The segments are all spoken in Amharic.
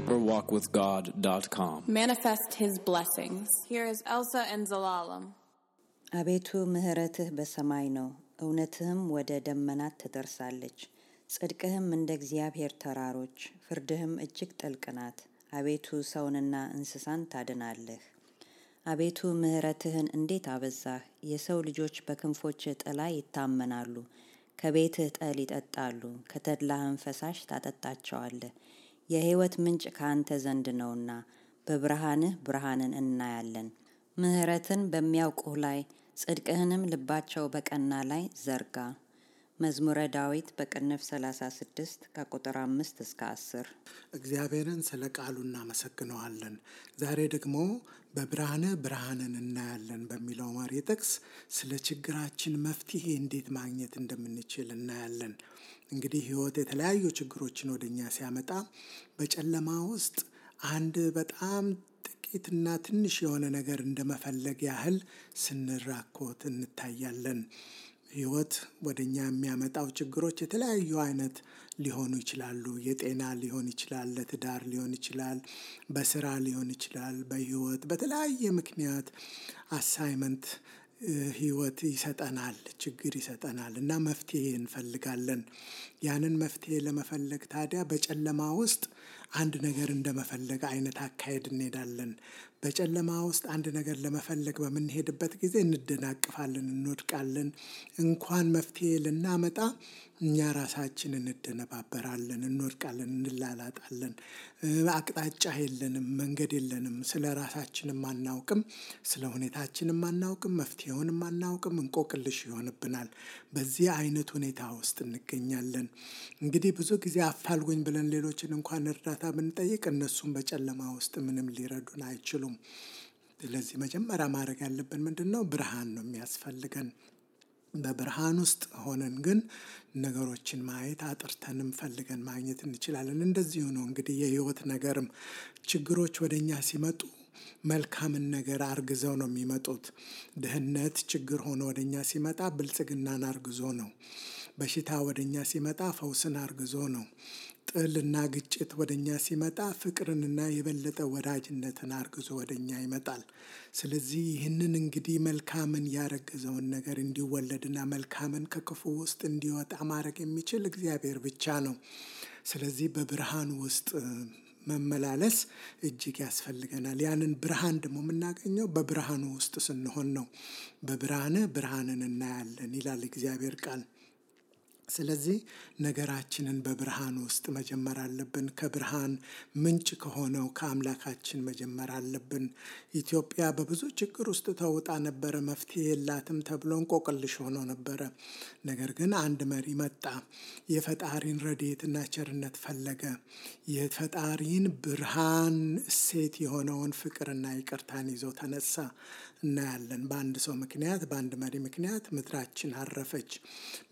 deeperwalkwithgod.com. Manifest His blessings. Here is Elsa and Zelalem. አቤቱ ምሕረትህ በሰማይ ነው፣ እውነትህም ወደ ደመናት ትደርሳለች። ጽድቅህም እንደ እግዚአብሔር ተራሮች፣ ፍርድህም እጅግ ጥልቅ ናት። አቤቱ ሰውንና እንስሳን ታድናለህ። አቤቱ ምሕረትህን እንዴት አበዛህ! የሰው ልጆች በክንፎችህ ጥላ ይታመናሉ። ከቤትህ ጠል ይጠጣሉ፣ ከተድላህም ፈሳሽ ታጠጣቸዋለህ። የሕይወት ምንጭ ከአንተ ዘንድ ነውና በብርሃንህ ብርሃንን እናያለን። ምሕረትን በሚያውቁህ ላይ ጽድቅህንም ልባቸው በቀና ላይ ዘርጋ። መዝሙረ ዳዊት በቅንፍ 36 ከቁጥር 5 እስከ 10። እግዚአብሔርን ስለ ቃሉ እናመሰግነዋለን። ዛሬ ደግሞ በብርሃንህ ብርሃንን እናያለን በሚለው መሪ ጥቅስ ስለ ችግራችን መፍትሄ እንዴት ማግኘት እንደምንችል እናያለን። እንግዲህ ሕይወት የተለያዩ ችግሮችን ወደኛ ሲያመጣ በጨለማ ውስጥ አንድ በጣም ጥቂትና ትንሽ የሆነ ነገር እንደመፈለግ ያህል ስንራኮት እንታያለን። ሕይወት ወደኛ የሚያመጣው ችግሮች የተለያዩ አይነት ሊሆኑ ይችላሉ። የጤና ሊሆን ይችላል፣ ለትዳር ሊሆን ይችላል፣ በስራ ሊሆን ይችላል። በሕይወት በተለያየ ምክንያት አሳይመንት ሕይወት ይሰጠናል፣ ችግር ይሰጠናል እና መፍትሄ እንፈልጋለን። ያንን መፍትሄ ለመፈለግ ታዲያ በጨለማ ውስጥ አንድ ነገር እንደመፈለግ አይነት አካሄድ እንሄዳለን። በጨለማ ውስጥ አንድ ነገር ለመፈለግ በምንሄድበት ጊዜ እንደናቅፋለን፣ እንወድቃለን። እንኳን መፍትሄ ልናመጣ እኛ ራሳችን እንደነባበራለን፣ እንወድቃለን፣ እንላላጣለን። አቅጣጫ የለንም፣ መንገድ የለንም። ስለ ራሳችንም አናውቅም፣ ስለ ሁኔታችንም አናውቅም፣ መፍትሄውንም አናውቅም። እንቆቅልሽ ይሆንብናል። በዚህ አይነት ሁኔታ ውስጥ እንገኛለን። እንግዲህ ብዙ ጊዜ አፋልጉኝ ብለን ሌሎችን እንኳን እርዳታ ብንጠይቅ እነሱም በጨለማ ውስጥ ምንም ሊረዱን አይችሉም። ስለዚህ መጀመሪያ ማድረግ ያለብን ምንድን ነው? ብርሃን ነው የሚያስፈልገን። በብርሃን ውስጥ ሆነን ግን ነገሮችን ማየት አጥርተንም ፈልገን ማግኘት እንችላለን። እንደዚሁ ነው እንግዲህ የሕይወት ነገርም ችግሮች ወደኛ ሲመጡ መልካምን ነገር አርግዘው ነው የሚመጡት። ድህነት ችግር ሆኖ ወደኛ ሲመጣ ብልጽግናን አርግዞ ነው። በሽታ ወደኛ ሲመጣ ፈውስን አርግዞ ነው። ጥልና ግጭት ወደኛ ሲመጣ ፍቅርንና የበለጠ ወዳጅነትን አርግዞ ወደኛ ይመጣል። ስለዚህ ይህንን እንግዲህ መልካምን ያረገዘውን ነገር እንዲወለድና መልካምን ከክፉ ውስጥ እንዲወጣ ማድረግ የሚችል እግዚአብሔር ብቻ ነው። ስለዚህ በብርሃን ውስጥ መመላለስ እጅግ ያስፈልገናል። ያንን ብርሃን ደግሞ የምናገኘው በብርሃኑ ውስጥ ስንሆን ነው። በብርሃንህ ብርሃንን እናያለን ይላል እግዚአብሔር ቃል። ስለዚህ ነገራችንን በብርሃን ውስጥ መጀመር አለብን። ከብርሃን ምንጭ ከሆነው ከአምላካችን መጀመር አለብን። ኢትዮጵያ በብዙ ችግር ውስጥ ተውጣ ነበረ። መፍትሄ የላትም ተብሎ እንቆቅልሽ ሆኖ ነበረ። ነገር ግን አንድ መሪ መጣ። የፈጣሪን ረድኤትና ቸርነት ፈለገ። የፈጣሪን ብርሃን እሴት የሆነውን ፍቅርና ይቅርታን ይዞ ተነሳ። እናያለን። በአንድ ሰው ምክንያት፣ በአንድ መሪ ምክንያት ምድራችን አረፈች።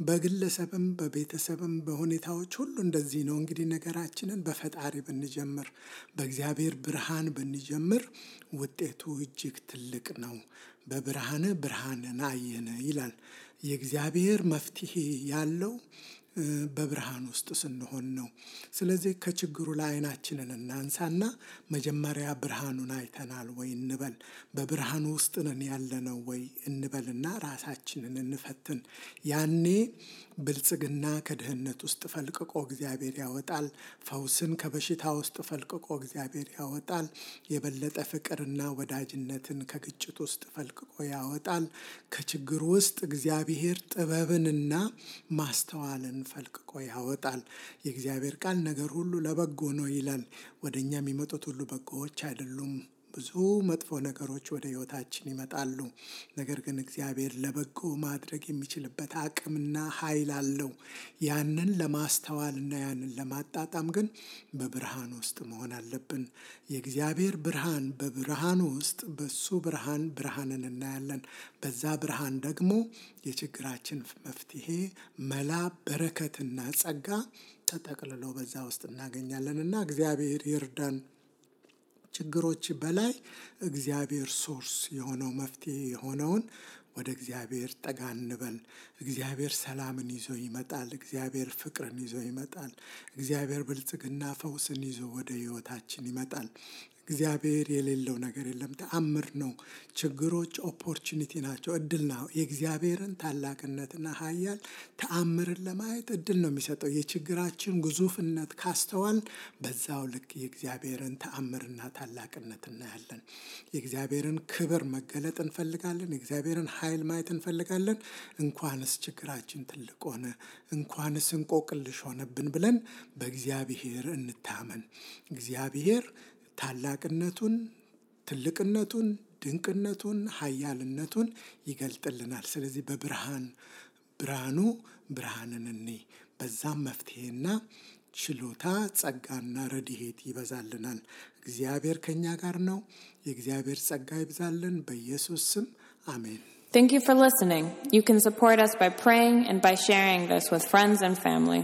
በግለሰብም በቤተሰብም በሁኔታዎች ሁሉ እንደዚህ ነው። እንግዲህ ነገራችንን በፈጣሪ ብንጀምር፣ በእግዚአብሔር ብርሃን ብንጀምር ውጤቱ እጅግ ትልቅ ነው። በብርሃንህ ብርሃንን አየን ይላል። የእግዚአብሔር መፍትሄ ያለው በብርሃን ውስጥ ስንሆን ነው። ስለዚህ ከችግሩ ላይ አይናችንን እናንሳና መጀመሪያ ብርሃኑን አይተናል ወይ እንበል። በብርሃኑ ውስጥ ነን ያለነው ወይ እንበልና ራሳችንን እንፈትን። ያኔ ብልጽግና ከድህነት ውስጥ ፈልቅቆ እግዚአብሔር ያወጣል። ፈውስን ከበሽታ ውስጥ ፈልቅቆ እግዚአብሔር ያወጣል። የበለጠ ፍቅርና ወዳጅነትን ከግጭት ውስጥ ፈልቅቆ ያወጣል። ከችግር ውስጥ እግዚአብሔር ጥበብንና ማስተዋልን ፈልቅቆ ያወጣል። የእግዚአብሔር ቃል ነገር ሁሉ ለበጎ ነው ይላል። ወደ እኛ የሚመጡት ሁሉ በጎዎች አይደሉም። ብዙ መጥፎ ነገሮች ወደ ሕይወታችን ይመጣሉ። ነገር ግን እግዚአብሔር ለበጎ ማድረግ የሚችልበት አቅምና ኃይል አለው። ያንን ለማስተዋልና ያንን ለማጣጣም ግን በብርሃን ውስጥ መሆን አለብን። የእግዚአብሔር ብርሃን በብርሃኑ ውስጥ በሱ ብርሃን ብርሃንን እናያለን። በዛ ብርሃን ደግሞ የችግራችን መፍትሄ፣ መላ፣ በረከትና ጸጋ ተጠቅልሎ በዛ ውስጥ እናገኛለን እና እግዚአብሔር ይርዳን። ችግሮች በላይ እግዚአብሔር ሶርስ የሆነው መፍትሄ የሆነውን ወደ እግዚአብሔር ጠጋ እንበል። እግዚአብሔር ሰላምን ይዞ ይመጣል። እግዚአብሔር ፍቅርን ይዞ ይመጣል። እግዚአብሔር ብልጽግና ፈውስን ይዞ ወደ ሕይወታችን ይመጣል። እግዚአብሔር የሌለው ነገር የለም። ተአምር ነው። ችግሮች ኦፖርቹኒቲ ናቸው፣ እድል ነው። የእግዚአብሔርን ታላቅነትና ኃያል ተአምርን ለማየት እድል ነው የሚሰጠው። የችግራችን ግዙፍነት ካስተዋል በዛው ልክ የእግዚአብሔርን ተአምርና ታላቅነት እናያለን። የእግዚአብሔርን ክብር መገለጥ እንፈልጋለን። የእግዚአብሔርን ኃይል ማየት እንፈልጋለን። እንኳንስ ችግራችን ትልቅ ሆነ፣ እንኳንስ እንቆቅልሽ ሆነብን ብለን በእግዚአብሔር እንታመን። እግዚአብሔር ታላቅነቱን፣ ትልቅነቱን፣ ድንቅነቱን፣ ኃያልነቱን ይገልጥልናል። ስለዚህ ብርሃኑ ብርሃንን እንይ። በዛም መፍትሄና ችሎታ፣ ጸጋና ረድኤት ይበዛልናል። እግዚአብሔር ከኛ ጋር ነው። የእግዚአብሔር ጸጋ ይብዛልን። በኢየሱስ ስም አሜን። Thank you for listening. You can support us by praying and by sharing this with friends and family.